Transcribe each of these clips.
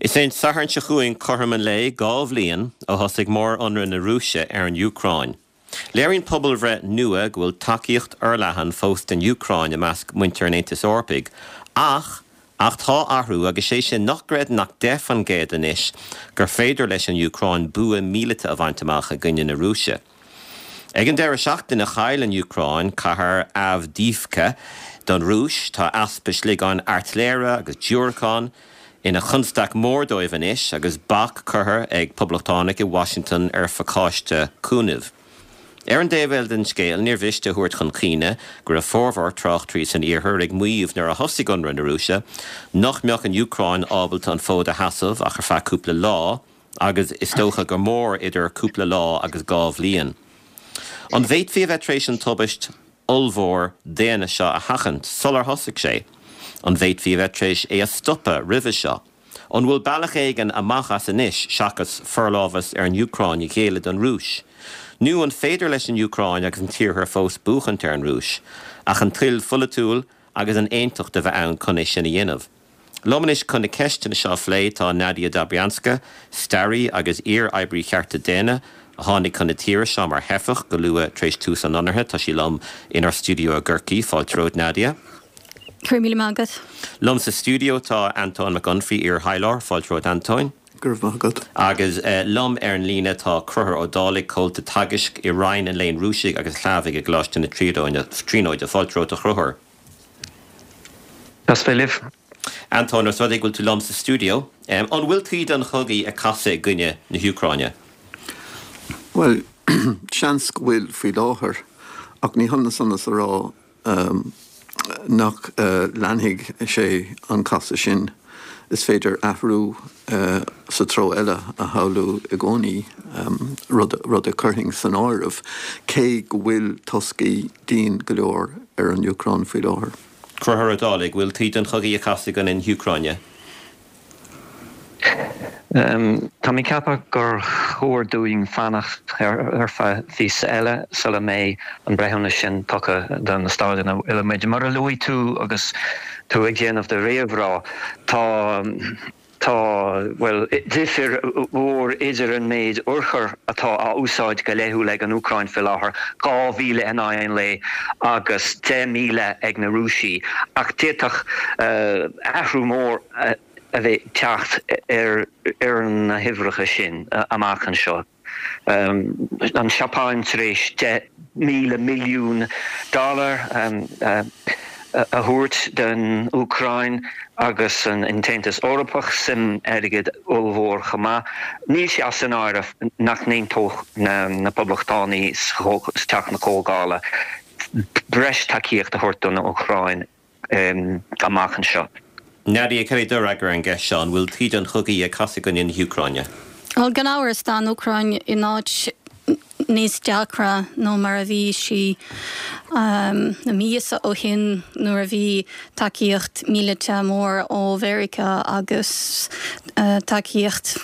Is é an Satharn seo chugainn cothrom an lae 2 bhliain ó thosaigh mór-ionradh na Rúise ar an Úcráin. Léiríonn pobalbhreith nua go bhfuil tacaíocht fhorleathan fós don Úcráin i measc muintir an Aontais Eorpaigh ach ach tá athrú agus sé sin nach gcreideann ach 10% anois gur féidir leis an Úcráin bua míleata a bhaint amach i gcoinne na Rúise. Ag an deireadh seachtaine chaill an Úcráin cathair Avdiivka don Rúis. Tá easpa sliogáin airtléire agus diúracán ina chonstaic mhór dóibh anois agus bac curtha ag poblachtánaigh i Washington ar phacáiste cúnaimh. Ar an dtaobh eile den scéal, níor mhiste a thabhairt chun cuimhne go raibh formhór tráchtairí san iarthar ag maíomh nuair a thosaigh ionradh na Rúise nach mbeadh an Úcráin ábalta an fód a sheasamh ach ar feadh cúpla lá, agus is dócha gur mór idir cúpla lá agus 2 bhliain. An bhféadfaí a bheith tar éis an tubaist ollmhór daonna seo a sheachaint sular thosaigh sé? An bhféadfaí a bheith tar éis é a stopadh roimhe seo? An bhfuil bealach éigin amach as anois seachas forlámhas ar an Úcráin a ghéilleadh don Rúis? Nó an féidir leis an Úcráin agus an tIarthar fós buachaint ar an Rúis, ach an toil pholaitiúil agus an aontacht a bheith ann chun é sin a dhéanamh? Liom anois chun na ceisteanna seo a phlé tá Nadia Dobrianska, staraí agus iar-oibrí chearta daonna, a tháinig chun na tíre seo mar theifeach go luath tar éis tús an ionraithe. Tá sí liom inár stiúideo i gCorcaigh. Fáilte romhat, Nadia. Go raibh míle maith agat. Liom sa stiúideo tá Antóin Mac Unfraidh, iar-thaidhleoir. Fáilte romhat, Antóin. Go raibh maith agat. Agus liom ar an líne tá Conchúr Ó Dálaigh, comhalta teagaisc i Roinn an Léinn Rúisigh agus Shlavaigh i gColáiste na Tríonóide. Fáilte romhat, a Chonchúir. Deas bheith libh. Antóin, os rud é go bhfuil tú liom sa stiúideo, an bhfuil taoide an chogaidh ag casadh i gcoinne na hÚcráine? Bhuel, seans go bhfuil faoi láthair, ach ní hionann san is a rá nach leanfaidh sé an casadh sin. Is féidir athrú sa treo eile a shamhlú i gcónaí, rud a chuirfinn san áireamh, cé go bhfuil toscaí dian go leor ar an Úcráin faoi láthair. Conchúr Ó Dálaigh, bhfuil taoide an chogaidh ag casadh i gcoinne na hÚcráine? Tá mé ag ceapadh gur chóir dúinn fanacht ar feadh mhíosa eile sula mbeidh an breithiúnas sin tugtha do na staid ina bhfuil muid. Mar a luaigh tú agus tú ag déanamh do réamhrá, tá Tá, bhuel, difir mhór idir an méid urchar atá á úsáid go laethúil ag an Úcráin faoi láthair, 2,000 in aghaidh an lae, agus 10,000 ag na Rúisigh. Ach d'fhéadfadh athrú mór a bheith ag teacht ar na huimhreacha sin amach anseo. An Seapáin tar éis 10,000 milliún dollar a thabhairt don Úcráin agus an tAontas Eorpach suim airgid ollmhór chomh maith. Níl sé as an áireamh nach n-aontódh na Poblachtánaigh sa Teach na Comhdhála breis tacaíocht a thabhairt don Úcráin. amach anseo. Nadia, cad é do fhreagra ar an gceist seo, an bhfuil taoide an chogaidh ag casadh i gcoinne na hÚcráine? Bhuel, gan amhras, tá an Úcráin in áit níos deacra ná mar a bhí sí na míosa ó shin nuair a bhí tacaíocht míleata mór ó Mheiriceá agus tacaíocht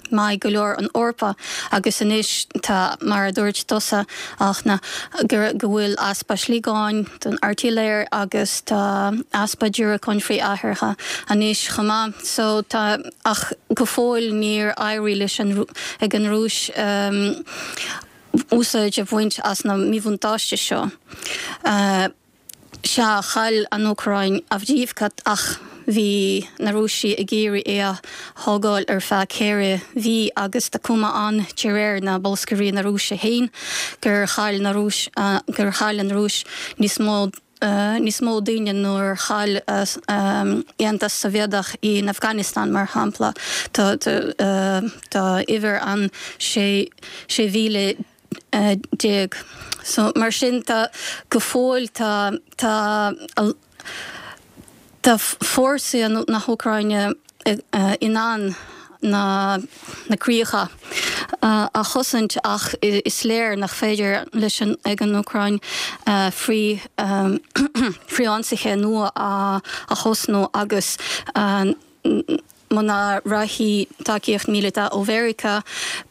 maith go leor an Eorpa agus anois tá, mar a dúirt tusa, Fhachtna, go bhfuil easpa sliogáin don airtléir agus tá easpa diúracáin frith-aerártha anois chomh maith. So tá, ach go fóill níor éirigh leis an, ag an Rúis úsáid a bhaint as na míbhuntáiste seo. Sea, chaill an Úcráin Avdiivka ach bhí na Rúisigh ag iarraidh é a thógáil ar feadh 4 mhí agus tá cuma ann, de réir na bolscairí na Rúise féin, gur chaill na Rúis gur chaill an Rúis níos mó níos mó daoine nuair chaill Aontas Sóivéadach in Afghanistan, mar shampla. Tá tá uimhir ann 16,000. So, mar sin tá, go fóill tá, tá, tá fórsaí na hÚcráine in ann na, na críocha a chosaint ach is léir nach féidir leis an, ag an Úcráin frith, frithionsaithe nua a thosnú agus Muna rachaidh tacaíocht míleata ó Mheiriceá,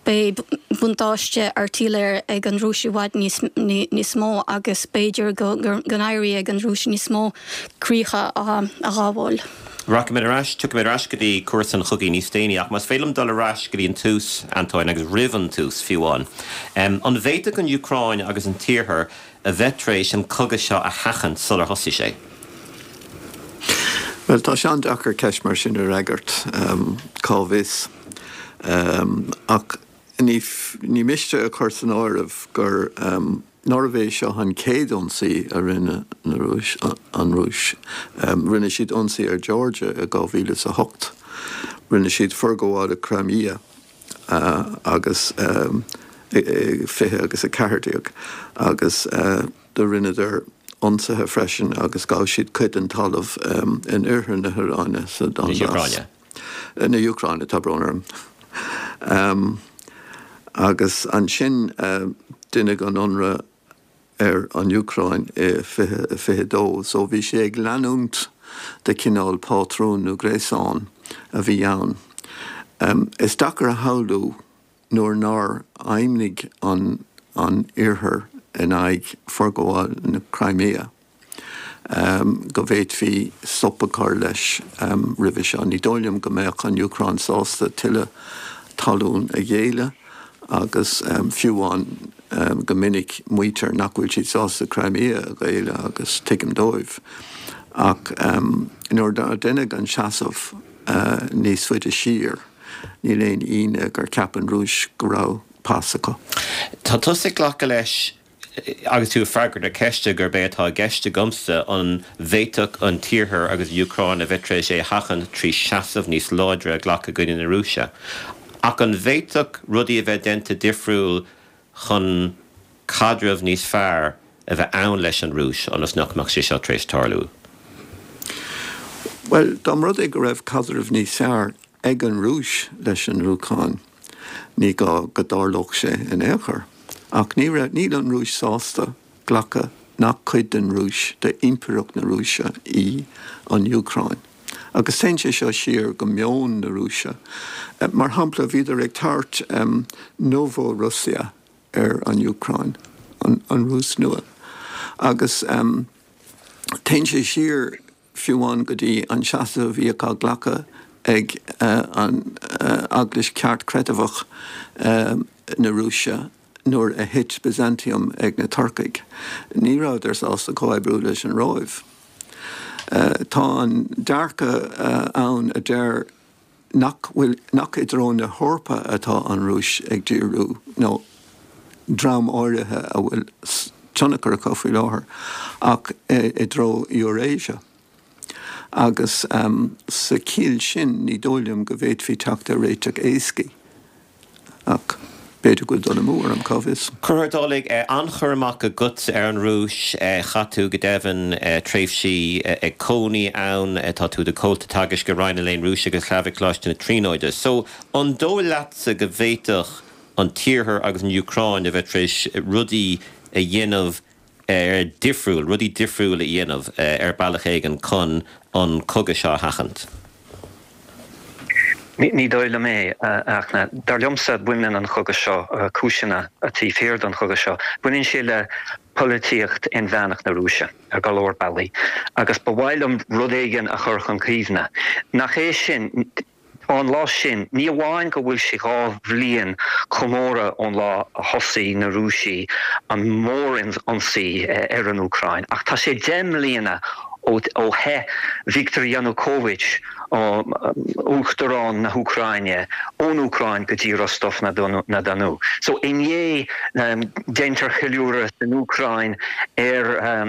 beidh buntáiste airtléire ag an Rúis i bhfad níos mó agus b'fhéidir go n-éireoidh ag an Rúis níos mó críocha a ghabháil. Rachaimid ar ais, tiocfaimid ar ais go dtí cúrsa an chogaidh níos déanaí, ach más féidir liom dul ar ais go dtí an tús, Antóin, agus roimh an tús, fiú amháin. An bhféadfadh an Úcráin agus an tIarthar a bheith tar éis an cogadh seo a sheachaint sular thosaigh sé? Bhuel, tá sé an-deacair ceist mar sin a fhreagairt, cá bhfios. Ach ní miste a chur san áireamh gur. Nárbh é seo an chéad ionsaí a rinne na Rúis, an Rúis? Rinne siad ionsaí ar Georgia i 2008. Rinne siad forghabháil i Crimea agus i 20 agus 14 agus do rinneadar ionsaithe freisin agus ghabh siad cuid den talamh in oirthear na hÚcráine sa Donbas. Na hÚcráine, tá brón orm. Agus ansin deineadh an ionradh ar an Úcráin i 2022. So bhí sé ag leanúint de chineál pátrún nó gréasán a bhí ann. Is deacair a shamhlú nuair nár fheidhmnigh an an Iarthar in aghaidh forghabháil na Crimea, go bhféadfaí stop a chur leis roimhe seo. Ní dóigh liom go mbeadh an Úcráin sásta tuilleadh talún a ghéilleadh agus fiú amháin go minic maítear nach bhfuil siad sásta Crimea a ghéilleadh agus tuigim dóibh. Ach nuair a deineadh an seasamh níos faide siar, Níl aon ionadh gur cheap an Rúis go raibh pas acu. Tá tusa ag glacadh leis, agus tú ag freagairt na ceiste, gurb é atá i gceist agamsa, an bhféadfadh an tIarthar agus an Úcráin a bheith tar éis é a sheachaint trí seasamh níos láidre a ghlacadh i gcoinne na Rúise. Ach an bhféadfadh rudaí a bheith déanta difriúil chun caidreamh níos fearr a bheith ann leis an Rúis ionas nach mbeadh sé seo tar éis tarlú? Bhuel, dá mba rud é go raibh caidreamh níos fearr ag an Rúis leis an Úcráin, ní gá go dtarlódh sé in aon chor. Ach ní raibh, níl an Rúis sásta glacadh nach cuid den Rúis, d'impireacht na Rúise í an Úcráin. Agus téann sé seo siar go meon na Rúise. Mar shampla, bhíodar ag tabhairt Novorussia ar an Úcráin, an Rúis Nua. Agus téann sé siar fiú amháin go dtí an seasamh a bhíodh á ghlacadh ag an Eaglais Cheartchreidmheach na Rúise nuair a thit Byzantium ag na Turcaigh. Ní rabhadar sásta comhoibriú leis an Róimh. Tá an dearcadh ann a deir nach bhfuil, nach i dtreo na hEorpa atá an Rúis ag díriú, nó dream áirithe a bhfuil tionchar acu faoi láthair, ach i dtreo Eurasia. Agus sa chiall sin, ní dóigh liom go bhféadfaí teacht ar réiteach éascaí. Ach b'fhéidir go bhfuil dul amú orm, cá bhfios? Conchúr Ó Dálaigh, an-chur amach agatsa ar an Rúis. Chaith tú, go deimhin, tréimhsí ag cónaí ann. Tá tú i do chomhalta teagaisc i Roinn an Léinn Rúisigh agus Shlavach ag Coláiste na Tríonóide. So, an dóigh leatsa go bhféadfadh an tIarthar agus an Úcráin a bheith tar éis rudaí a dhéanamh difriúil, rudaí difriúil a dhéanamh ar bealach éigin chun an cogadh seo a sheachaint? Ní dóigh liom é, a Fhachtna. Dar liomsa, baineann an cogadh seo, cúiseanna taobh thiar den chogadh seo, baineann sé le polaitíocht inmheánach na Rúise ar go leor bealaí. Agus ba mhaith liom rud éigin a chur chun cuimhne. Nach é sin, Tá an lá sin, ní amháin go bhfuil sé 2 bhliain comóradh ón lá a thosaigh na Rúisigh an mhórionsaí ar an Úcráin, ach tá sé 10 mbliana ó theith Viktor Yanukovych, Uachtarán na hÚcráine, ón Úcráin go dtí Rostov-na-Donu. So inné déantar ceiliúradh san Úcráin ar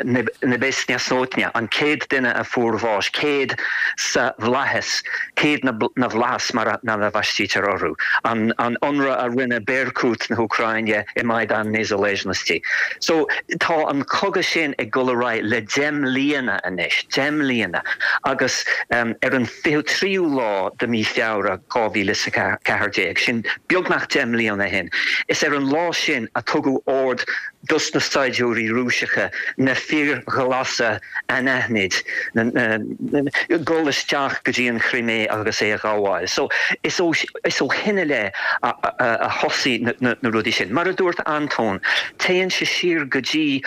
Nebesnaya Sotnya, an 100 duine a fuair bháis, 100 sa bhflaitheas, 100 na bhflaitheas mar a bhaistítear orthu, an ionradh a rinne Berkut na hÚcráine i Maidan Nezalezhnosti. So tá an cogadh sin ag dul ar aghaidh le 10 mbliana anois, 10 mbliana, agus ar an 23ú lá de mí Feabhra 2014, sin beagnach 10 mbliana ó shin, is ar an lá sin a tugadh ord. dos na saighdiúirí Rúiseacha, na fir ghlasa anaithnid, dul isteach go dtí an Chrimé agus é a ghabháil. So, is ó is ó shin i leith a thosaigh na rudaí sin. Mar a dúirt Antóin, téann sé siar go dtí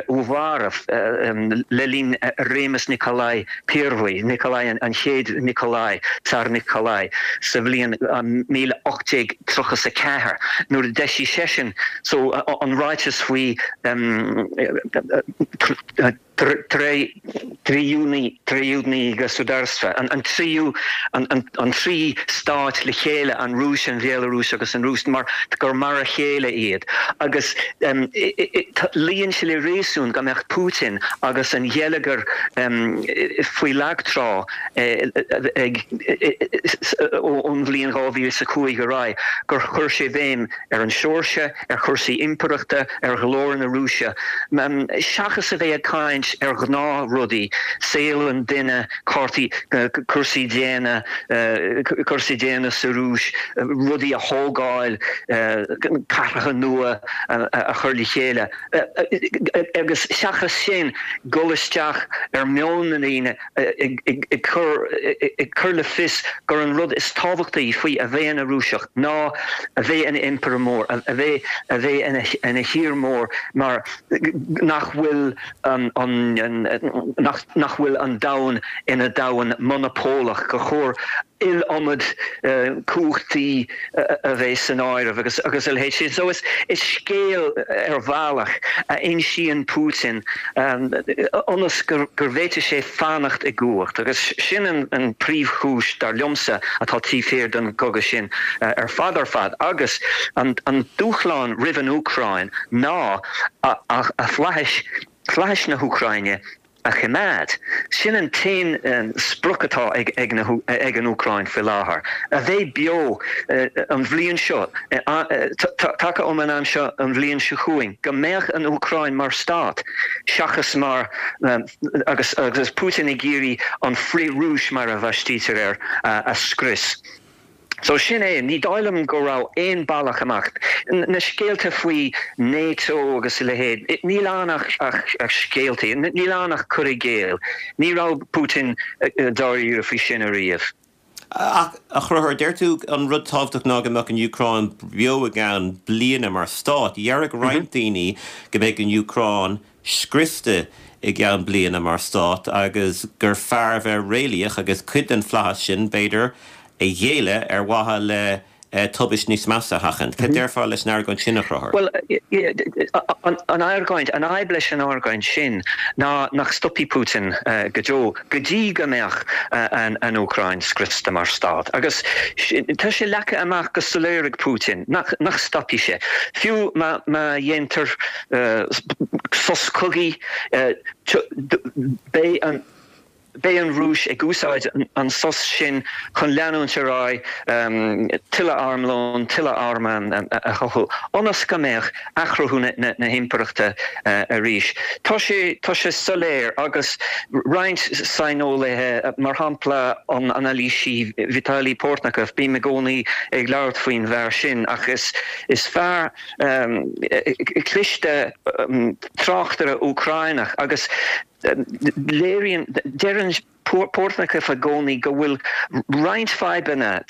Uvarov le linn réimeas Nikolai Pervyi, Nikolai an chéad Nikolai, Tsar Nikolai, sa bhliain 1834, nuair a d'eisigh seisean so an ráiteas faoi Triedinoe Gosudarstvo, an tríú, an trí stát le chéile, an Rúis, an Bhéalarúis agus an Rúis, mar gur mar a chéile iad. Agus luíonn sé le réasún go mbeadh Putin agus an gheilleagar faoi lag trá ag ón bhliain 2005 ar aghaidh, gur chuir sé béim ar an Seoirsia, ar chúrsaí impireachta, ar ghlóir na Rúise, seachas a bheith ag caint ar ghnáthrudaí, saol an duine, cártaí, cúrsaí daonna, cúrsaí daonna sa Rúis, rudaí a thógáil, cathracha nua a chur le chéile, agus seachas sin, dul isteach ar mheon na ndaoine. ag cur le fios gur an rud is tábhachtaí faoi a bheith ina Rúiseach ná a bheith ina impire mór, a bheith a bheith ina thír mór mar nach bhfuil an nach bhfuil an domhan ina domhan monopólach, gur chóir iliomad cumhachtaí a bheith san áireamh agus agus a leithéid sin. So is scéal ar bhealach a insíonn Putin ionas go bhféadfaidh sé fanacht i gcumhacht agus sin an príomhchúis dar liomsa atá taobh thiar den gcogadh sin ar fad ar fad. Agus an dúshlán roimh an Úcráin ná a flaithis, flaithis na hÚcráine a choimeád. Sin an t-aon sprioc atá ag an Úcráin faoi láthair, a bheith beo an bhliain seo, taca um an am seo an bhliain seo chugainn, go mbeadh an Úcráin mar stát seachas mar, agus Putin ag iarraidh an frith-Rúis, mar a bhaistítear air, a scrios. So sin é, ní dóigh liom go raibh aon bealach amach. Na scéalta faoi NATO agus a leithéid, níl ann ach scéaltaí, níl ann ach cur i gcéill. Ní raibh Putin dáiríre faoi sin ariamh. Ach, a Chonchúir, deir tú an rud tábhachtach ná go mbeadh an Úcráin beo i gceann bliana mar stát. Déarfadh roinnt daoine go mbeidh an Úcráin scriosta i gceann bliana mar stát agus gur fearr a bheith réalaíoch agus cuid den flaitheas sin, b'fhéidir, a ghéilleadh ar mhaithe le tubaist níos measa a sheachaint. Cad déarfá leis an argóint sin, a Chonchúir? Bhuel, an argóint, an fhadhb leis an argóint sin ná nach stopfaidh Putin go deo go dtí go mbeadh an Úcráin scriosta mar stát. Agus tá sé leagtha amach go soiléir ag Putin nach stopfaidh sé. Fiú má dhéantar sos cogaidh, beidh an beidh an Rúis ag úsáid an sos sin chun leanúint ar aghaidh tuilleadh armlóin, tuilleadh arm a chothú, ionas go mbeadh athchruthú na himpireachta arís. Tá sé tá sé soiléir agus roinnt saineolaithe, mar shampla an anailísí Vitaly Portnikov, bím i gcónaí ag labhairt faoin bhfear sin ach is is fear cliste tráchtaire Úcráineach agus léiríonn, deireann Portnikov i gcónaí go bhfuil roinnt fadhbanna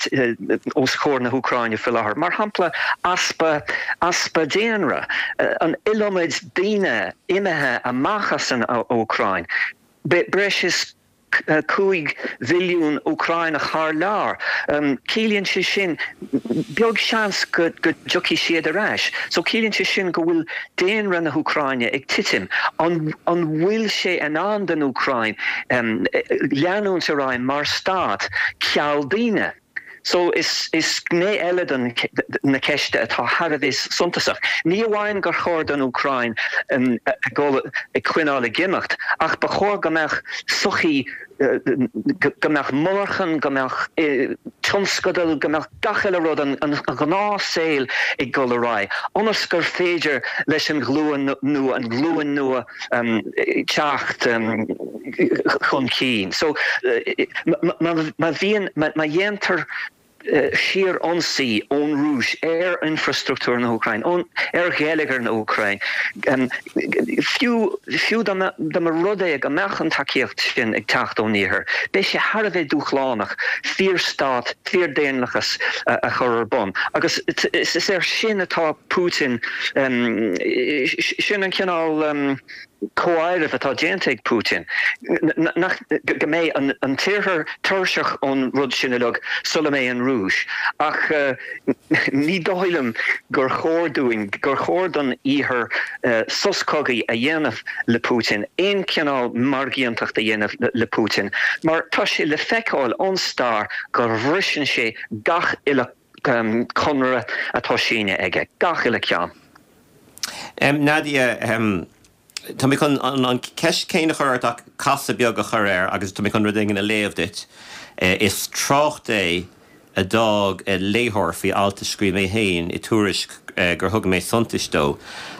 os comhair na hÚcráine faoi láthair, mar shampla easpa easpa daonra, an iliomad daoine imithe amach as an Úcráin, breis is 5 mhilliún Úcráineach thar lear. Ciallaíonn sé sin, beag seans go dtiocfaidh siad ar ais. So ciallaíonn sé sin go bhfuil daonra na hÚcráine ag titim. An bhfuil sé in ann don Úcráin leanúint ar aghaidh mar stát ceal daoine? So is gné eile den na ceiste atá thar a bheith suntasach. Ní amháin gur chóir don Úcráin a dhul ag coinneáil ag imeacht, ach ba chóir go mbeadh sochaí, go mbeadh monarchan, go mbeadh tionscadail, go mbeadh gach uile rud, an gnáthshaol ag dul ar aghaidh, ionas gur féidir leis an ghlúin nua, an ghlúin nua teacht chun cinn. So, má bhíonn, má dhéantar. síor-ionsaí ón Rúis ar infrastruchtúr na hÚcráine, ar gheilleagar na hÚcráine, fiú fiú dá mba rud é go mbeadh an tacaíocht sin ag teacht ón Iarthar, beidh sé thar a bheith dúshlánach fíorstát, fíordhaonlathas a chur ar bun. Agus is air sin atá Putin, sin an cineál. comháireamh atá déanta ag Putin, nach, go mbeidh an tIarthar tuirseach ón rud sin uilig sula mbeidh an Rúis. Ach ní dóigh liom gur chóir dúinn, gur chóir don Iarthar sos cogaidh a dhéanamh le Putin, aon chineál margaíontacht a dhéanamh le Putin, mar tá sé le feiceáil ón stair go bhriseann sé gach uile conradh atá sínithe aige, gach uile ceann. Nadia, tá mé chun an ceist céanna a chur ort ach casadh beag a chur air agus tá mé chun rud éigin a léamh duit. Is trácht é a d'fhág léitheoir faoi alt a scríobh mé féin i Tuairisc gur thug mé suntais dó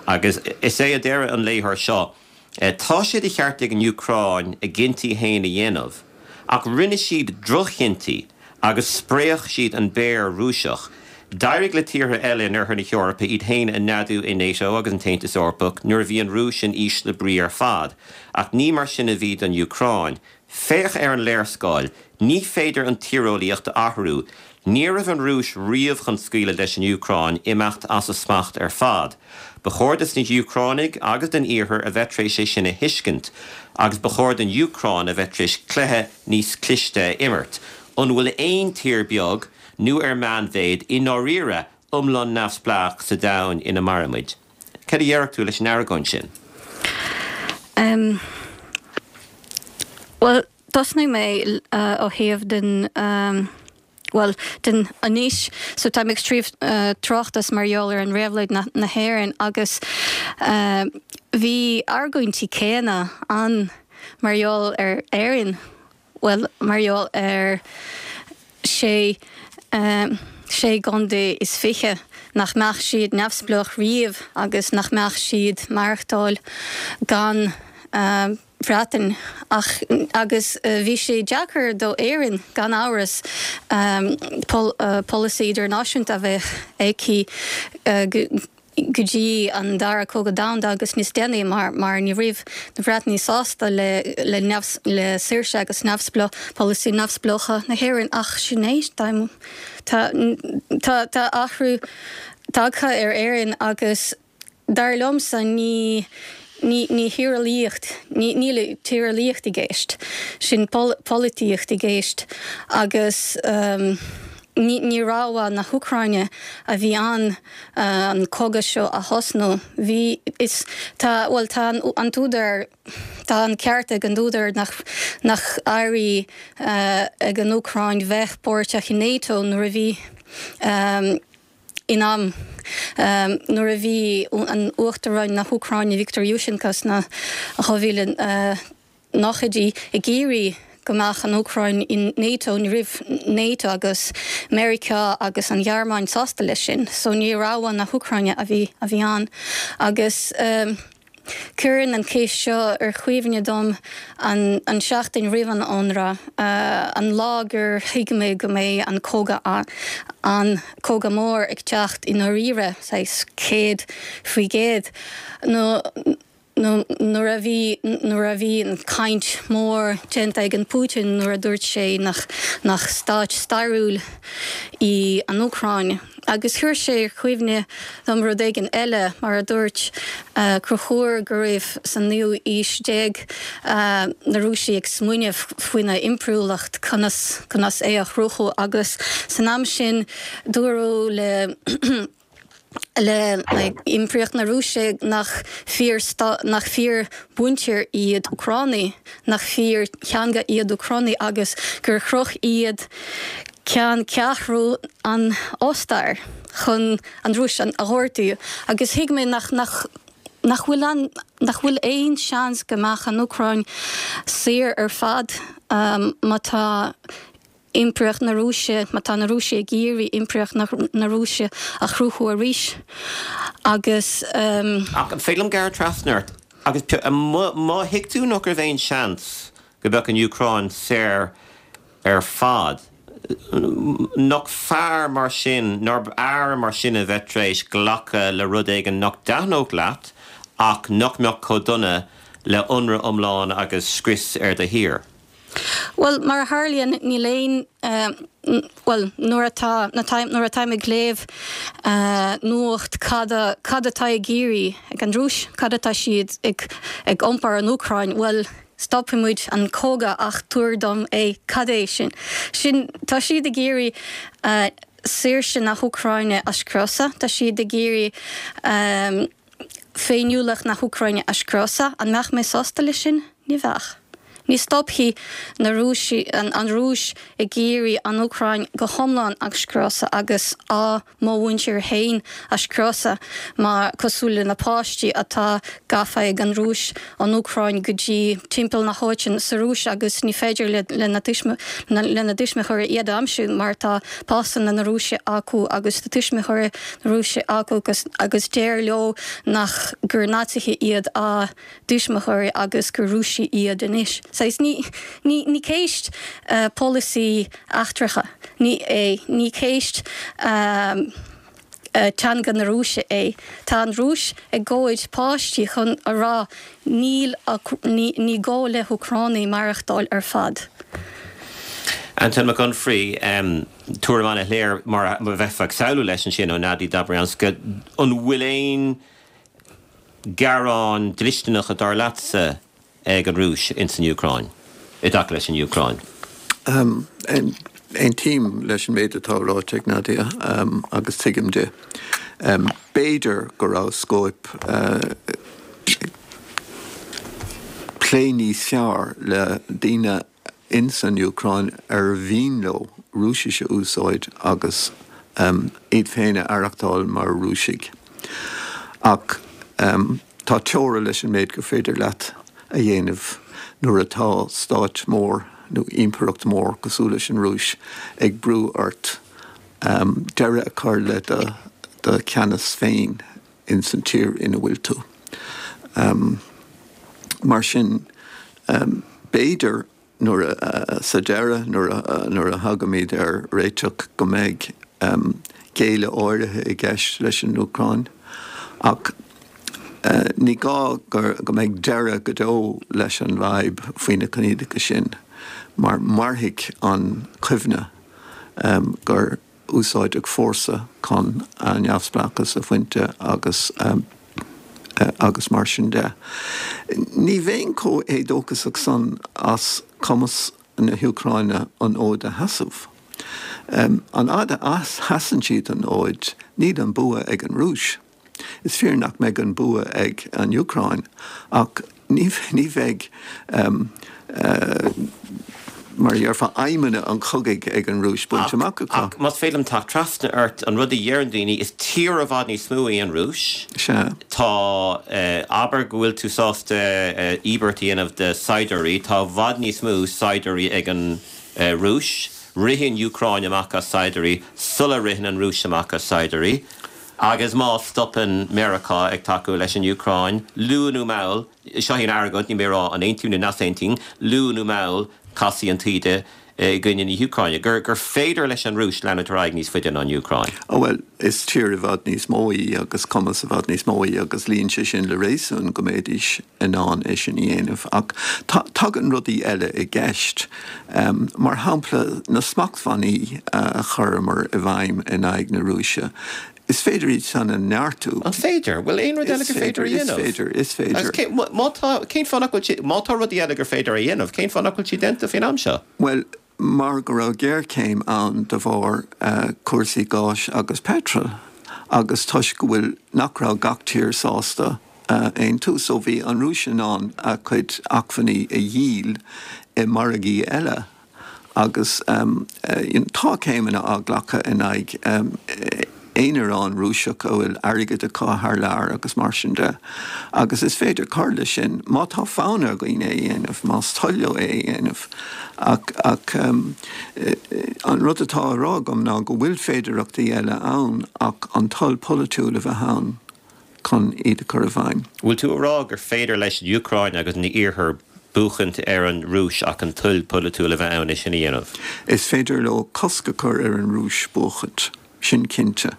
agus is é a deir an léitheoir seo, Tá sé de cheart ag an Úcráin a gcinntí féin a dhéanamh, ach rinne siad droch-chinntí agus spréach siad an Béar Rúiseach. D'éirigh le tíortha eile in Oirthear na hEorpa iad féin a neadú i NATO agus an tAontas Eorpach nuair a bhí an Rúis in ísle brí ar fad, ach ní mar sin a bhí don Úcráin. Féach ar an léarscáil. Ní féidir an tíreolaíocht a athrú. Ní raibh an Rúis riamh chun scaoileadh leis an Úcráin imeacht as a smacht ar fad. Ba chóir dos na hÚcránaigh agus don Iarthar a bheith tar éis é sin a thuiscint. Agus ba chóir don Úcráin a bheith tar éis cluiche níos cliste a imirt. An bhfuil aon tír beag, nó ar meánmhéid, i ndáiríre iomlán neamhspleách sa domhan ina mairimid? Cad a déarfadh tú leis an argóint sin? Em. Bhuel, tosnóidh mé ó thaobh den, bhuel, den anois. So tá mé ag scríobh tráchtas mar gheall ar an réabhlóid na hÉireann agus bhí argóintí céanna ann mar gheall ar Éirinn. bhuel, mar gheall ar sé, sé gcontae is 20, nach mbeadh siad neamhspleách riamh agus nach mbeadh siad maireachtáil gan Bhreatain. Ach, agus bhí sé deacair do Éirinn, gan amhras, polasaí idirnáisiúnta a bheith aici go, go dtí an Dara Cogadh Domhanda agus níos déanaí mar mar ní raibh na Breatanaigh sásta le le neamh le saoirse agus neamhspleá polasaí neamhspleácha na hÉireann ach sin é tá tá tá tá athrú tagtha ar Éirinn agus dar liomsa ní ní ní thíreolaíocht ní níl tíreolaíocht i gceist sin polaitíocht i gceist agus ní ní rogha na hÚcráine a bhí ann an cogadh seo a thosnú. Bhí, is, tá, bhuel, tá an t-údar, tá an ceart ag an údar nach, nach éirigh ag an Úcráin bheith páirteach i NATO nuair a bhí, in am, nuair a bhí an Uachtaráin na hÚcráine Viktor Yushchenko sna 2000, nóchaidí ag iarraidh go mbeadh an Úcráin in NATO, ní raibh NATO agus Meiriceá agus an Ghearmáin sásta leis sin, so ní rogha na hÚcráine a bhí a bhí ann. Agus cuireann an cheist seo ar chuimhne dom an an seachtain roimh an ionradh, an lá gur thuig mé go mbeidh an cogadh an cogadh mór ag teacht i ndáiríre, saghas 100%, nó nuair a bhí nuair a bhí an caint mór déanta ag an Putin nuair a dúirt sé nach nach stáit stairiúil í an Úcráin. Agus chuir sé ar chuimhne dom rud éigin eile, mar a dúirt Conchúr go raibh san naoú aois déag na Rúisigh ag smaoineamh faoina impiriúlacht, conas conas é a chruthú agus san am sin dúradh le le Impireacht na Rúise nach fíor nach fíor mhuintir iad Úcránaigh, nach fíor theanga iad Úcránaigh agus gur chroch iad ceanncheathrú an Ostair chun an Rúis a ghortú. Agus thuig mé nach nach nach bhfuil an nach bhfuil aon seans go mbeadh an Úcráin saor ar fad má tá Impireacht na Rúise, má tá na Rúisigh ag iarraidh Impireacht na Rúise a chruthú arís agus. Ach an féidir liom gearradh trasna ort agus má thuig tú nach raibh aon seans go mbeadh an Úcráin saor ar fad. Nach fearr mar sin, nárbh fhearr mar sin a bheith tar éis glacadh le rud éigin nach dtaitneodh leat ach nach mbeadh chomh dona le ionradh iomlán agus scrios ar do thír? Bhuel, mar a tharlaíonn, níl aon, bhuel, nuair atá, nuair atáim ag léamh nuacht cad, cad atá ag iarraidh ag an Rúis, cad atá siad ag, ag iompar an Úcráin, bhuel, stopfaidh muid an cogadh ach tabhair dom é, cad é sin? Sin, tá siad ag iarraidh saoirse na hÚcráine a scriosadh, tá siad ag iarraidh féiniúlacht na hÚcráine a scriosadh. An mbeadh mé sásta leis sin? Ní bheadh. Ní stopfaidh na Rúisigh, an Rúis ag iarraidh an Úcráin go hiomlán a scriosadh agus á mo mhuintir féin a scriosadh mar cosúil le na páistí atá gafa ag an Rúis ón Úcráin go dtí timpeall na háite sa Rúis agus ní féidir lena dtuismitheoirí iad a aimsiú mar tá pasanna na Rúise acu agus tá tuismitheoirí na Rúise acu agus deir leo nach gur Naitsithe iad a dtuismitheoirí agus gur Rúisigh iad anois. Saghas ní ní ní ceist polasaí eachtracha ní é, ní ceist teanga na Rúise é. Tá an Rúis ag gabháil páistí chun a rá níl ní ní gá le hÚcránaigh maireachtáil ar fad. Antain Mac Unfraidh, tuairim an-shoiléir mar a bheifeá ag samhlú leis ansin ó Nadia Dobrianska. An bhfuil aon gearáin dlisteanacha dar leatsa ag an Rúis ins an Úcráin, i dtaca leis an Úcráin? Aontaím leis an méid atá ráite ag Nadia agus tuigim di. B'fhéidir go raibh scóip plé níos fearr le daoine ins an Úcráin ar mhian leo Rúisis a úsáid agus iad féin a aireachtáil mar Rúisigh. Ach tá teora leis an méid gur féidir leat a dhéanamh nuair atá stát mór nó impireacht mhór cosúil leis an Rúis ag brú ort deireadh a chur le do cheannas féin ins an tír ina bhfuil tú. Mar sin, b'fhéidir nuair a, sa deireadh, nuair a, nuair a thagaimid ar réiteach go mbeidh géilleadh áirithe i gceist leis an Úcráin. Ach ní gá go mbeidh deireadh go deo leis an bhfadhb faoi na coinníollacha sin, mar mairfidh an chuimhne gur úsáideadh fórsa chun a neamhspleáchas a bhaint agus agus mar sin de. Ní bheinn chomh héadóchasach san as cumas na hÚcráine an fhód a sheasamh. An fhad a sheasann siad an fhód, níl an bua ag an Rúis. Is fíor nach mbeidh an bua ag an Úcráin, ach ní bheidh, mar a déarfá, aidhmeanna an chogaidh ag an Rúis bainte amach acu. Ach más féidir liom teacht trasna ort, an rud a dheireann daoine, is tír i bhfad níos mó í an Rúis. Sea. Tá, abair go bhfuil tú sásta íobairt a dhéanamh de saighdiúirí, tá i bhfad níos mó saighdiúirí ag an Rúis. Ritheann an Úcráin amach as saighdiúirí sula ritheann an Rúis amach as saighdiúirí. Agus má stopann Meiriceá ag tacú leis an Úcráin, luath nó mall, seo í an argóint, níl mé ag rá an aontaím nó nach aontaím, luath nó mall casfaidh an taoide i gcoinne na hÚcráine. Gur gur féidir leis an Rúis leanúint ar aghaidh níos faide ná an Úcráin. Ó bhuel, is tír i bhfad níos mó í agus cumas i bhfad níos mó í agus luíonn sé sin le réasún go mbeidís in ann é sin a dhéanamh. Ach tagann rudaí eile i gceist. Mar shampla, na smachtbhannaí a chuireamar i bhfeidhm in aghaidh na Rúise, is féidir iad san a neartú. An féidir? Bhfuil aon rud eile gur féidir a dhéanamh? Is féidir, is féidir. Agus cé, má tá, cén fáth nach bhfuil sé, má tá rudaí eile gur féidir a dhéanamh, cén fáth nach bhfuil siad déanta faoin am seo? Bhuel, mar go raibh géarchéim ann de bharr cúrsaí gáis agus peitril agus toisc go bhfuil, nach raibh gach tír sásta aontú so bhí an Rúis in ann a cuid acmhainní a dhíol i margaí eile agus tá céimeanna á nglacadh in aghaidh aonaráin Rúiseach a bhfuil airgead acu thar lear agus mar sin de. Agus is féidir cur leis sin má tá fonn ar dhaoine é a dhéanamh, más toil leo é a dhéanamh. Ach, ach an rud atá á rá agam ná go bhfuil féidearthachtaí eile ann ach an toil pholaitiúil a bheith ann chun iad a chur i bhfeidhm. Bhfuil tú a rá gur féidir leis an Úcráin agus an Iarthar. buachaint ar an Rúis ach an toil polaitiúil a bheith ann é sin a dhéanamh. Is féidir leo cosc a chur ar an Rúis buachaint, sin cinnte.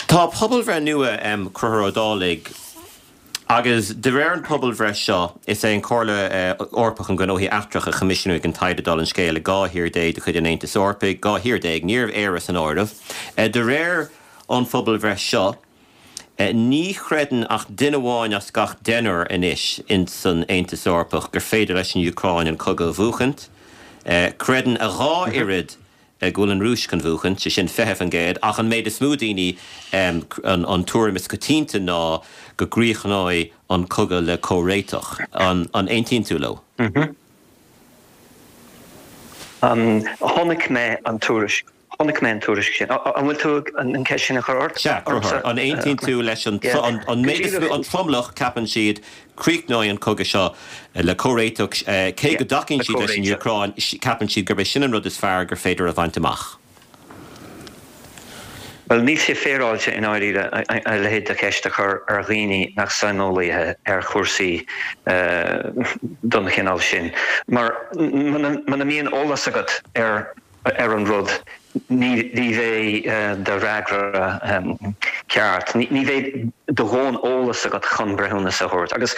Tá pobalbhreith nua, Conchúr Ó Dálaigh, agus de réir an pobalbhreith seo, is é an Chomhairle Eorpach um Ghnóthaí Eachtracha a choimisiúnaigh an taighde dála an scéil i 12 thír de chuid an Aontais Eorpaigh, 12 thír, ní raibh Éire san áireamh. De réir an phobalbhreith seo, ní chreideann ach duine amháin as gach deichniúr anois ins an Aontas Eorpach gur féidir leis an Úcráin an cogadh a bhuachaint. Creideann a dhá oiread go bhfuil an Rúis chun bhuachaint, sé sin 20%, ach an méid is mó daoine, an tuairim is coitianta ná go gcríochnóidh an cogadh le comhréiteach. An aontaíonn tú leo? Chonaic mé an tuairisc. Chonaic mé an tuairisc sin. An bhfuil tú an ceist sin a chur ort? Sea, ormsa? An aontaíonn tú leis an an méid is mó, an tromlach, ceapann siad, críochnóidh an cogadh seo le comhréiteach, cé go dtacaíonn siad leis an Úcráin, ceapann siad gurb é sin an rud is fearr gur féidir a bhaint amach. Bhuel, níl sé féaráilte i ndáiríre a leithéid de cheist a chur ar dhaoine nach saineolaithe ar chúrsaí den chineál sin, mar muna mbíonn eolas agat ar ar an rud, ní bheidh do fhreagra ceart, ní bheidh do dhóthain eolas agat chun breithiúnas a thabhairt. Agus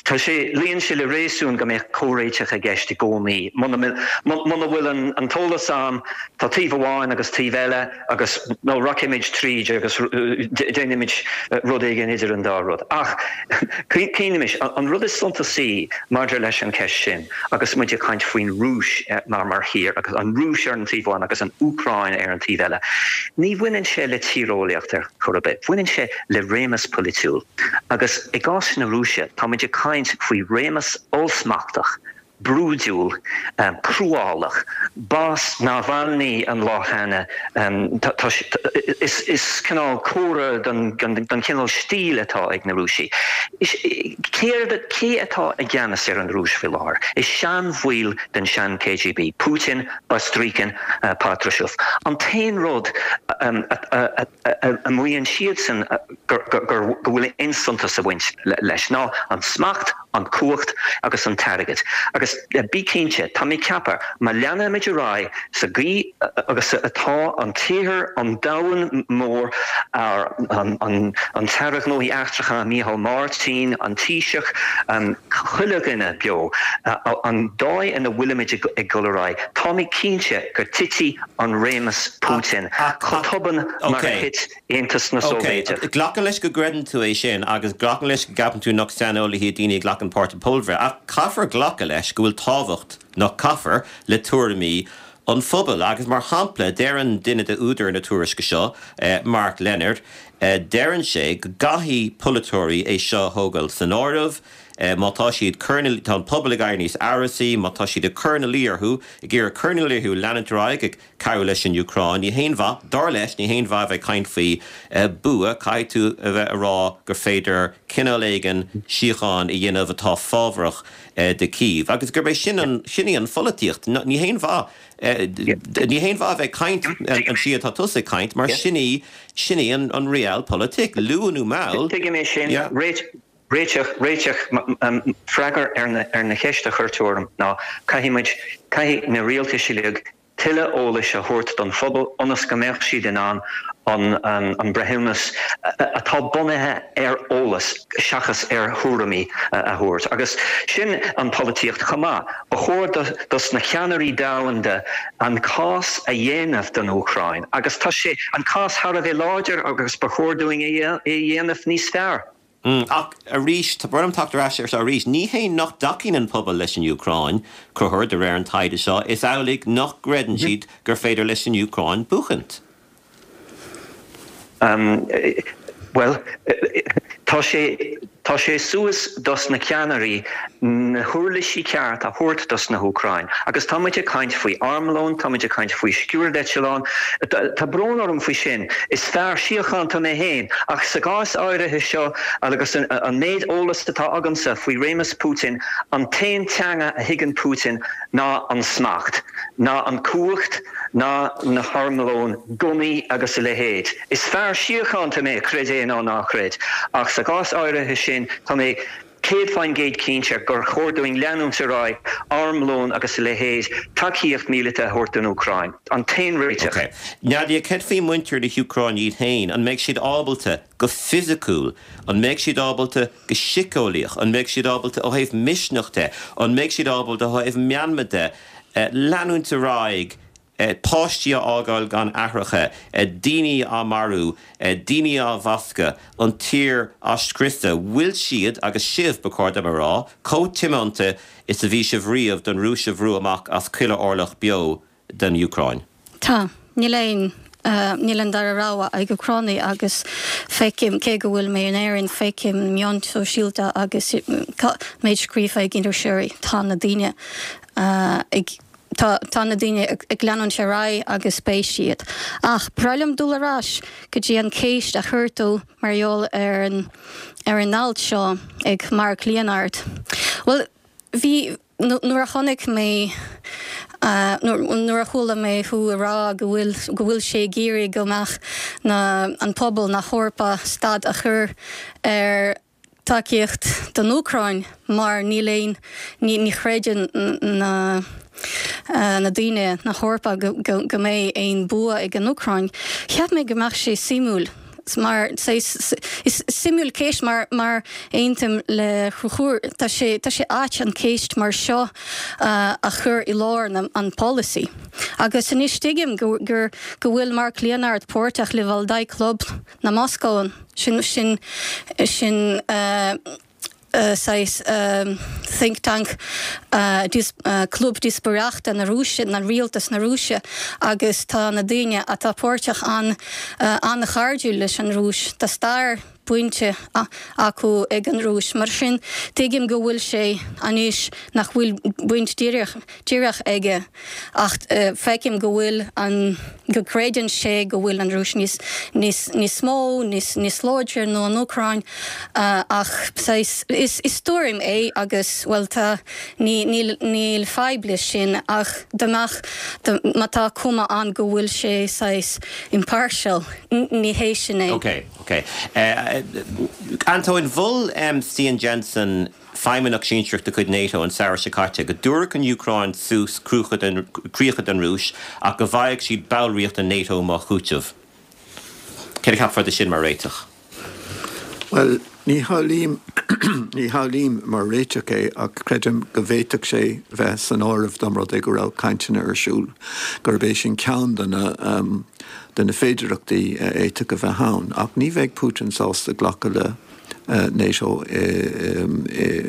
tá sé, luíonn sé le réasún go mbeadh comhréiteach i gceist i gcónaí. Muna bhfuil an t-eolas ann, tá taobh amháin agus taobh eile agus nó rachaimid tríd agus déanfaimid rud éigin idir an dá rud. Ach cuimhnímis, an rud is suntasaí maidir leis an cheist sin, Agus muid ag caint faoin Rúis mar mar thír, agus an Rúis ar an taobh amháin agus an Úcráin ar an taobh eile, ní bhaineann sé le tíreolaíocht ar chor ar bith. Baineann sé le réimeas polaitiúil. Agus i gcás na Rúise, tá muid ag caint faoi réimeas ollsmachtach, brúidiúil, cruálach, b'as Navalny an lá cheana, is cineál comhartha den chineál stíl atá ag na Rúisigh. Céard, cé atá i gceannas ar an Rúis faoi láthair? Is seanbhaill den sean-KGB, Putin, Bastrykin, Patrushev. An t-aon rud a maíonn siadsan go bhfuil aon suntas ag baint leis ná an smacht, an cumhacht agus an t-airgead. Agus bí cinnte, tá mé ag ceapadh, má leanaimid ar aghaidh sa gcaoi agus atá an t-iarthar, an domhan mór, an tAire Gnóthaí Eachtracha Micheál Martin, an Taoiseach, chuile dhuine beo, an dóigh ina bhfuilimid ag dul ar aghaidh, tá mé cinnte go dtitfidh an réimeas Putin chomh tobann mar a thit Aontas na Sóivéideach. Ok, glacaim leis go gcreideann tú é sin agus glacaim leis go gceapann tú nach saineolaithe iad daoine a ghlacann páirt i bpobalbhreith ach caithfear glacadh leis go bhfuil tábhacht, nach caithfear, le tuairimí an phobail agus mar shampla deireann duine de údair na tuairisce seo, Mark Leonard, deireann sé go gcaithfidh polaiteoirí é seo a thógáil san áireamh má tá siad cur ina, tá an pobal ag éirí níos amhrasaí, má tá siad ag cur ina luí orthu, ag iarraidh cur ina luí orthu leanúint ar aghaidh ag cabhrú leis an Úcráin. Ní haon mhaith, dar leis, ní haon mhaith a bheith ag caint faoi bua, caithfidh tú a bheith a rá gur féidir cineál éigin síocháin a dhéanamh atá fábharach do Kyiv. Agus gurb é sin an, sin í an pholaitíocht. Ní haon mhaith, ní haon mhaith a bheith ag caint an tslí atá tusa ag caint, mar sin í, sin í an realpolitik, luath nó mall. Tuigim é sin. Réiteach, réiteach, freagra ar na cheist a chuir tú orm ná caithfidh muid, caithfidh na rialtais uilig tuilleadh eolais a thabhairt don phobal ionas go mbeadh siad in ann an breithiúnas atá bunaithe ar eolas seachas ar thuairimí a thabhairt. Agus sin an pholaitíocht chomh maith. Ba chóir dos na ceannairí domhanda an cás a dhéanamh don Úcráin agus tá sé, an cás thar a bheith láidir agus ba chóir dúinn é a dhéanamh níos fearr. Ach arís, tá brón orm teacht ar ais air seo arís, ní hé nach dtacaíonn an pobal leis an Úcráin, Conchúr, de réir an taighde seo, is amhlaidh nach gcreideann siad gur féidir leis an Úcráin buachaint. Bhuel, tá sé, tá sé suas dos na ceannairí na huirlisí ceart a thabhairt dos na hÚcráin. Agus tá muid ag caint faoi armlón, tá muid ag caint faoi sciúrdeitleáin, tá brón orm faoi sin, is fear síochánta mé féin, ach sa gcás áirithe seo agus an méid eolas atá agamsa faoi réimeas Putin, an t-aon teanga a thuigeann Putin ná an smacht, ná an cumhacht, ná na harmlóin, gunnaí agus a leithéid. Is fear síochánta mé, creid é nó ná creid, ach sa gcás áirithe sin tá mé. 100% cinnte gur chóir dúinn leanúint ar aghaidh, armlón agus a leithéid, tacaíocht míleata a thabhairt don Úcráin. An t-aon réiteach. Ok. Nadia, céard faoi muintir na hÚcráine iad féin? An mbeidh siad ábalta, go fisiciúil, an mbeidh siad ábalta go síceolaíoch, an mbeidh siad ábalta ó thaobh misneach de, an mbeidh siad ábalta ó thaobh meanma de, leanúint ar aghaidh, páistí á fhágáil gan aithreacha, daoine á marú, daoine á bhascadh, an tír á scriosadh? Bhfuil siad, agus sibh, ba chóir dom a rá, chomh tiomanta is a bhí sibh riamh don Rúis a bhrú amach as chuile orlach beo den Úcráin? Tá. Níl aon, níl an dara rogha ag Úcránaigh agus feicim, cé go bhfuil mé in Éirinn, feicim meáin sóisialta agus méid scríofa ag iriseoirí, tá na daoine ag, tá, tá na daoine ag leanúint ar aghaidh agus beidh siad. Ach ba bhreá liom dul ar ais go dtí an ceist a chuir tú mar gheall ar an, ar an alt seo ag Mark Leonard. Bhuel, bhí, Nuair a chonaic mé, nuair a chuala mé thú ag rá go bhfuil, go bhfuil sé ag iarraidh go mbeadh na, an pobal na hEorpa stad a chur ar tacaíocht don Úcráin mar níl aon, ní, ní chreideann na, na daoine na hEorpa go, go, go mbeidh aon bua ag an Úcráin. Cheap mé go mbeadh sé suimiúil. Mar is suimiúil ceist mar mar aontaím le Conchúr tá sé tá sé ait an ceist mar seo a chur i lár na an polasaí. Agus anois tuigim go gur go bhfuil Mark Leonard páirteach le Valdai Club na Moscó sin sin sin saghas think tank, club díospóireachta na Rúise, na rialtas na Rúise agus tá na daoine atá páirteach ann an-chairdiúil leis an Rúis. Tá stair bainte acu ag an Rúis. Mar sin, tuigim go bhfuil sé anois nach bhfuil baint díreach aige ach feicim go bhfuil an, go gcreideann sé go bhfuil an Rúis níos, níos, níos mó, níos, níos láidre ná an Úcráin ach saghas, is, is tuairim é agus, bhuel tá, ní, níl, níl fadhb leis sin ach dá mbeadh, má tá cuma ann go bhfuil sé saghas impartial, ní hé sin é. Ok, ok. Antóin, mhol Stian Jensen, feidhmeannach sinsearach de chuid NATO an samhradh seo caite, go dtabharfadh an Úcráin suas críocha don Rúis ach go bhfaigheadh siad ballraíocht in NATO mar chúiteamh. Céard a cheapfá de sin mar réiteach? Bhuel, ní shamhlaím, ní shamhlaím mar réiteach é ach creidim go bhféadfadh sé bheith san áireamh dá mba rud é go raibh cainteanna ar siúl, gurb é sin ceann de na, de na féidearthachtaí a fhéadfadh a bheith ann. Ach ní bheidh Putin sásta glacadh le. NATO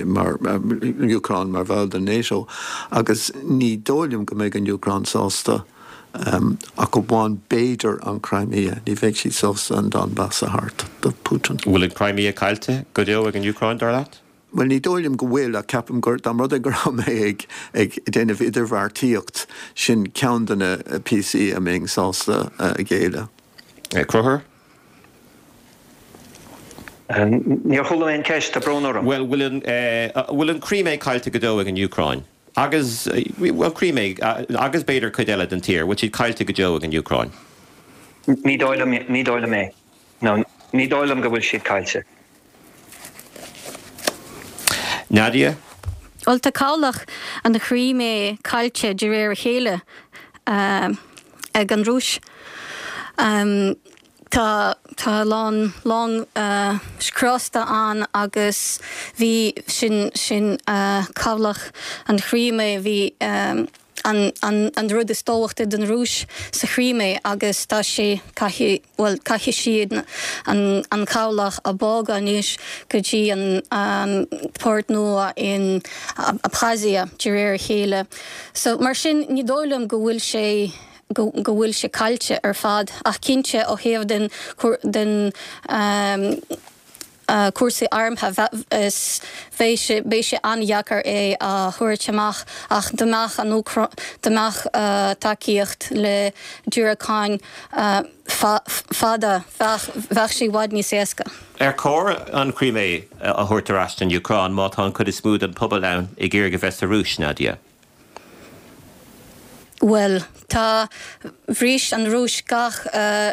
mar Úcráin mar bhall den NATO agus ní dóigh liom go mbeidh an Úcráin sásta ach amháin b'fhéidir an Crimea, ní bheidh siad sásta an Donbas a thabhairt do Putin. Bhfuil an Crimea caillte go deo ag an Úcráin, dar leat? Bhuel, ní dóigh liom go bhfuil ach ceapaim gur, dá mba rud é go raibh mé ag ag déanamh idirbheartaíocht, sin ceann de na píosaí a mbeinn sásta a ghéilleadh. Conchúr? Níor chuala mé an ceist, tá brón orm. Bhuel, bhfuil an, bhfuil an Crimea caillte go deo ag an Úcráin? Agus, bhuel, Crimea, agus b'fhéidir cuid eile den tír, bhfuil siad caillte go deo ag an Úcráin? Ní dóigh liom, ní dóigh liom é. No, ní dóigh liom go bhfuil siad caillte. Nadia? Bhuel, tá cabhlach an Chrimea caillte de réir a chéile ag an Rúis. Tá tá a lán long scriosta ann agus bhí sin sin cabhlach an Chrimea bhí an an an rud is tábhachtaí don Rúis sa Chrimea agus tá sé caithfidh bhuel caithfidh siad an an cabhlach a bhogadh anois go dtí an an port nua in Abkhazia de réir a chéile. So mar sin ní dóigh liom go bhfuil sé go bhfuil sé caillte ar fad ach cinnte ó thaobh den den cúrsaí armtha is bheidh sé beidh sé an-dheacair é a thabhairt amach ach dá mbeadh an dá mbeadh tacaíocht le diúracáin fada bheadh bheadh sé i bhfad níos éasca. Ar chóir an Chrimea a thabhairt ar ais don Úcráin má tá an chuid is mó den pobal ann ag iarraidh a bheith sa Rúis, Nadia? Bhuel, tá, bhris an Rúis gach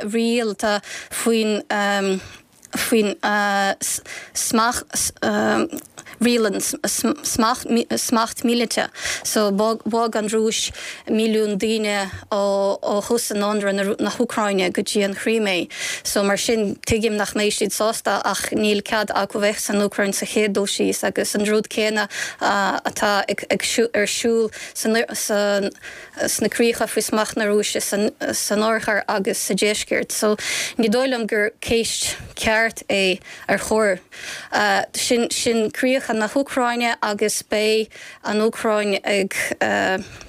riail, tá faoin, faoin smacht. Riail smacht míleata. So bhog an Rúis milliún daoine ó thús an ionradh na hÚcráine go dtí an Chrímé. So mar sin tuigim nach mbeidh siad sásta ach níl cead acu bheith san Úcráin sa chéad dul síos agus an rud céanna atá ar siúl sna críocha faoi smacht na Rúise san oirthear agus sa deisceart. So ní dóigh liom gur ceist ceart é ar chóir. Sin, sin críocha na hÚcráine agus beidh an Úcráin ag,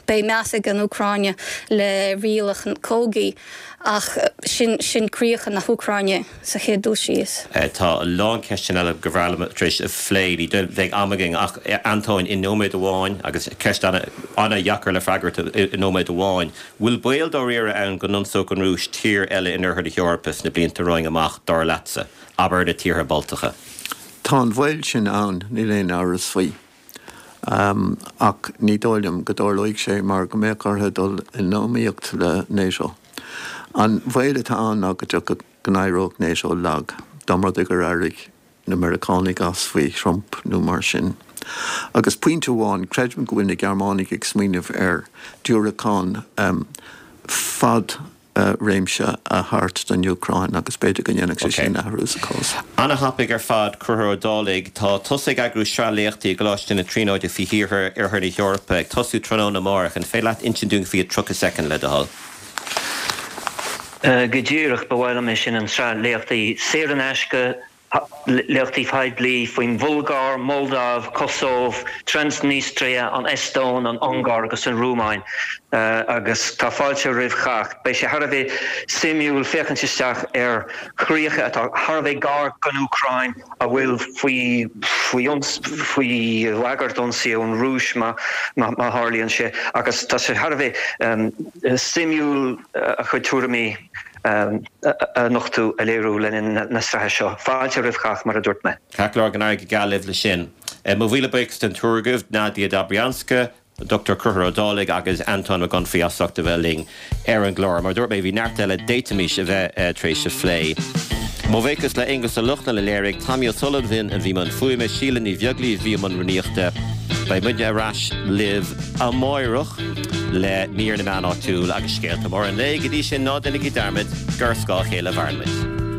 beidh meas ag an Úcráin le rialacha cogaidh ach sin, sin críocha na hÚcráine sa chéad dul síos. Tá a lán ceisteanna eile gur bhreá liom tar éis a phlé, ní bheidh am againn ach Antóin, i nóiméad amháin, agus ceist an-deacair le freagairt i nóiméad amháin, bhfuil baol dáiríre ann go n-ionsódh an Rúis tír eile in oirthear na hEorpa sna blianta romhainn amach, dar leatsa? Abair na tíortha Baltacha. Tá an baol sin ann, níl aon amhras faoi. Ach ní dóigh liom go dtarlóidh sé mar go mbeadh orthu dul in iomaíocht le NATO. An baol atá ann ná go dtiocfadh, go n-éireodh NATO lag, dá mba rud é gur éirigh na Meiriceánaigh as faoi Trump nó mar sin. Agus pointe amháin, creidim go bhfuil na Gearmánaigh ag smaoineamh ar diúracán fad réimse a thabhairt don Úcráin agus b'fhéidir go ndéanfadh sé sin athrú sa chás. Ana-thapaidh ar fad, Conchúr Ó Dálaigh. Tá tusa ag eagrú sraith léachtaí i gColáiste na Tríonóide faoi thíortha Oirthear na hEorpa, ag tosú tráthnóna amárach. An féidir leat insint dúinn faoi i 30 soicind, le do thoil? Go díreach, ba mhaith liom é sin, an tsraith léachtaí saor in aisce, Léachtaí poiblí faoin Bhulgáir, Moldaiv, Cosóv, Transnistria, an Eastóin, an Ungáir agus an Rúmáin agus tá fáilte roimh chách. Beidh sé thar a bheith suimiúil féachaint isteach ar chríocha atá thar a bheith gar don Úcráin a bhfuil faoi faoi bhagairt ionsaí ón Rúis má tharlaíonn sé agus tá sé thar a bheith suimiúil a chuid tuairimí a nochtadh, a léiriú le linn na sraithe seo. Fáilte roimh chách, mar a dúirt mé. Ceart go leor, go n-éirí go geal libh leis sin. Mo mhíle buíochas den triúr agaibh, Nadia Dobrianska, Dr Conchúr Ó Dálaigh agus Antóin Mac Unfraidh as ucht a bheith linn ar an gclár. Mar a dúirt mé, bhí neart eile d'fhéadfaimis a bheith tar éis a phlé. Mo bhuíochas le Aonghus Ó Lochlainn a léirigh, Tommy O'Sullivan a bhí i mbun fuaime, Síle Ní Bheaglaoí a bhí i mbun rúnaíochta. Beidh muidne ar ais libh amáireach le mír na meán áitiúil agus scéalta móra an lae. Go dtí sin, ná déanaigí dearmad gur ar scáth a chéile a mhaireann muid.